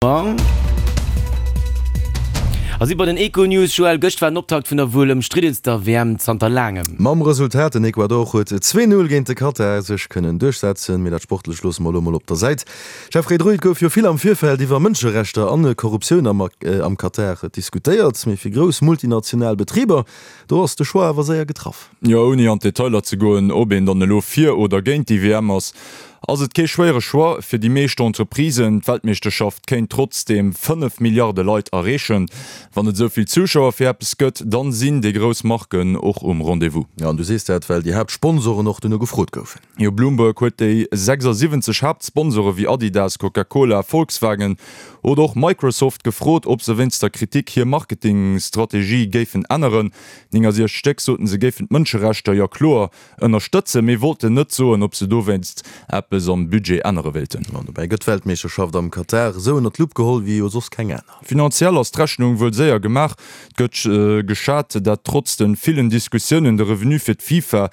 A si bei den Econews, Joël, gëscht war den Optakt vun der wuel ëmstriddenster WM zanter laangem. Mam Resultat, den Ecuador huet 2, 0 géint de Katar sech kënnen duerchsetzen. Mee dat Sportlecht loosse mer elo mol op der Säit. Jeffrey Druy, et gouf jo vill am Virfeld iwwer Mënscherechter an Korruptioun am Katar diskutéiert. Mee fir grouss multinational Betriber, do ass de Choix awer séier getraff. Jo, ouni an d'Detailer ze goen, ob een dann elo fir oder géint déi WM ass, ass et kee schwéiere Choix fir déi meescht Entreprisen. D'Weltmeeschterschaft kéint trotzdeem 5 Milliarde Leit erreechen. Wann et esou vill Zuschauer fir eppes gëtt, dann sinn déi grouss Marken och um Rendez-vous. Jo, an du sees dat, well déi Haaptsponsoren och duerno gefrot goufen. Jo, Bloomberg huet déi 76 Haaptsponsore wéi Adidas, Coca-Cola, Volkswagen oder och Microsoft gefrot, ob se wéinst der Kritik hir Marketingstrategie géifen änneren. 69 Stéck soten, se géifen d'Mënscherechter jo kloer ënnerstëtzen, mee wollten net soen, ob se dowéinst eppes am Budget ännere wéilten. An dobäi gëtt d'Weltmeeschterschaft am Katar esou ënner d'Lupp geholl wéi jo soss keng aner. Finanziell ass d'Rechnung wuel séier gemaach. Et gëtt geschat, dat trotz de villen Diskussiounen de Revenu fir d'FIFA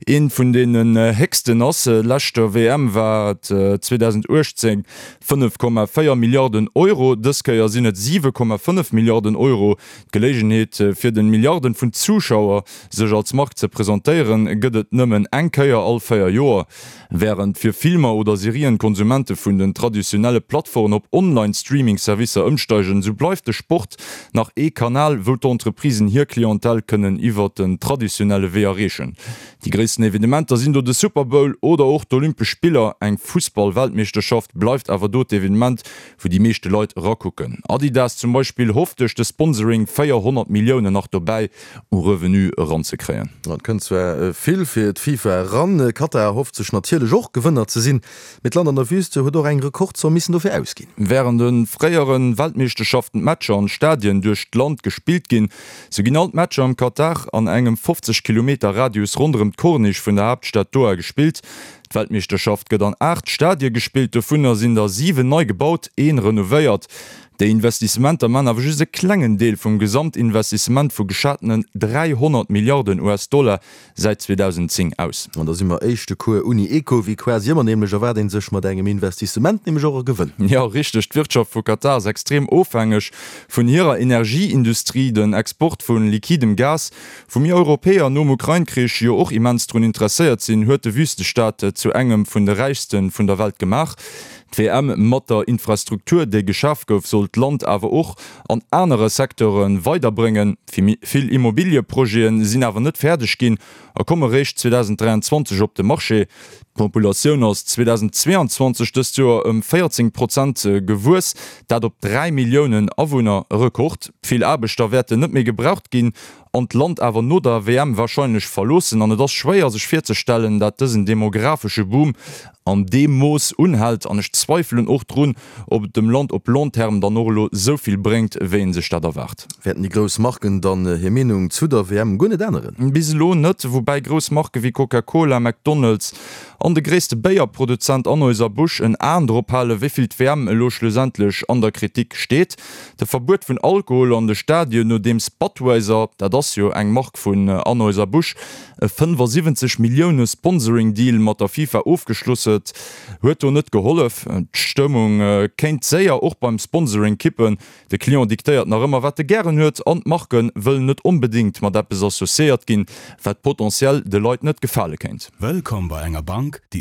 een vun deenen héchsten ass. Leschter WM war et 2018 5,4 Milliarden Euro, dës Kéier sinn et 7,5 Milliarden Euro. D'Geléigenheet fir den Milliarden vun Zuschauer sech als Mark ze presentéieren gëtt et nëmmen eng Kéier all 4 Joer. Wärend fir Filmer oder Serien d'Konsumente vun den traditionelle Plattformen op Online Streaming Servicer ëmsteigen, sou bleift de Sport nach ee Kanal wou d'Entreprisen hir Clientèle kënnen iwwert den traditionelle Wee erreechen. Déi gréissten Evenementer sinn do de Super Bowl oder och d'Olympesch Spiller. Eng Fussball-Weltmeeschterschaft bleift awer do d'Evenement wou déi meeschte Leit erakucken. Adidas zum Beispill hofft duerch de Sponsoring 400 Milliounen nach dobäi u Revenu eranzekréien. Et kënnt zwar vill fir d'FIFA eran, Katar hofft sech natierlech och Gewënner ze sinn, mee d'Land an der Wüste huet och eng Rekordzomm missen dofir ausginn. Wärend de fréiere Weltmeeschterschaften d'Matcher an Stadien duerch d'Land gespillt ginn, sou ginn all d'Matcher am Katar an engem 50 Kilometer Radius ronderëm d'Corniche vun der Haaptstad Doha gespillt. D'Weltmeeschterschaft gëtt an 8 Stadie gespillt, dovunner sinn der 7 nei gebaut, een renovéiert. Déi Investissementer man awer just e klengen Deel vum Gesamtinvestissement vu geschatenen 300 Milliarden US-Dollar säit 2010 aus. An da si mer éischte Cours uni Eco, wéi quasi ëmmer, nämlech erwaart ee sech mat engem Investissement nämlech och e Gewënn. Jo, richteg, d'Wirtschaft vu Katar ass extrem ofhängeg vun hirer Energieindustrie. Den Export vu liquidem Gas Wou mir Europäer nom Ukrain-Krich jo och immens drun interesséiert sinn, huet de Wüstestaat zu engem vun de räichste vun der Welt gemaach. D'WM mat der Infrastruktur, déi geschaf gouf, soll d'Land awer och an anere Secteure weiderbréngen. Vill Immobilieprojete sinn awer net fäerdeg ginn a komme réischt 2023 op de Marché. D'Populatioun ass 2022, dëst Joer, ëm 14 Prozent gewuess, dat op 3 Milliounen Awunner, e Rekord. Vill Aarbechter wäerten net méi gebraucht ginn an d'Land awer no der WM warscheinlech verloossen. An et ass schwéier sech virzestellen, dat dësen demographesche Boom an deem Mooss unhält. An ech zweifelen och drun, ob et dem Land op long terme dann och elo esou vill bréngt, wéi ee sech dat erwaart. Wäerten déi grouss Marken dann hir Meenung zu der WM guer net änneren? Bis elo net, woubäi grouss Marke wéi Coca-Cola, McDonald's an de gréisste Béierproduzent Anheuser-Busch en Aen drop halen, wéi vill d'WM elo schlussendlech an der Kritik steet. De Verbuet vun Alkohol an de Stadien, nodeems Budweiser, dat ass jo eng Mark vun Anheuser-Busch, e 75 Millioune Sponsoring-Deal mat der FIFA ofgeschloss huet, huet do net gehollef. D'Stëmmung kéint séier och beim Sponsoring kippen. De Client diktéiert nach ëmmer wat e gären huet an d'Marke wëllen net onbedéngt mat eppes associéiert ginn, wat potentiell de Leit net gefale kéint. Wëllkomm bei enger Bank, déi.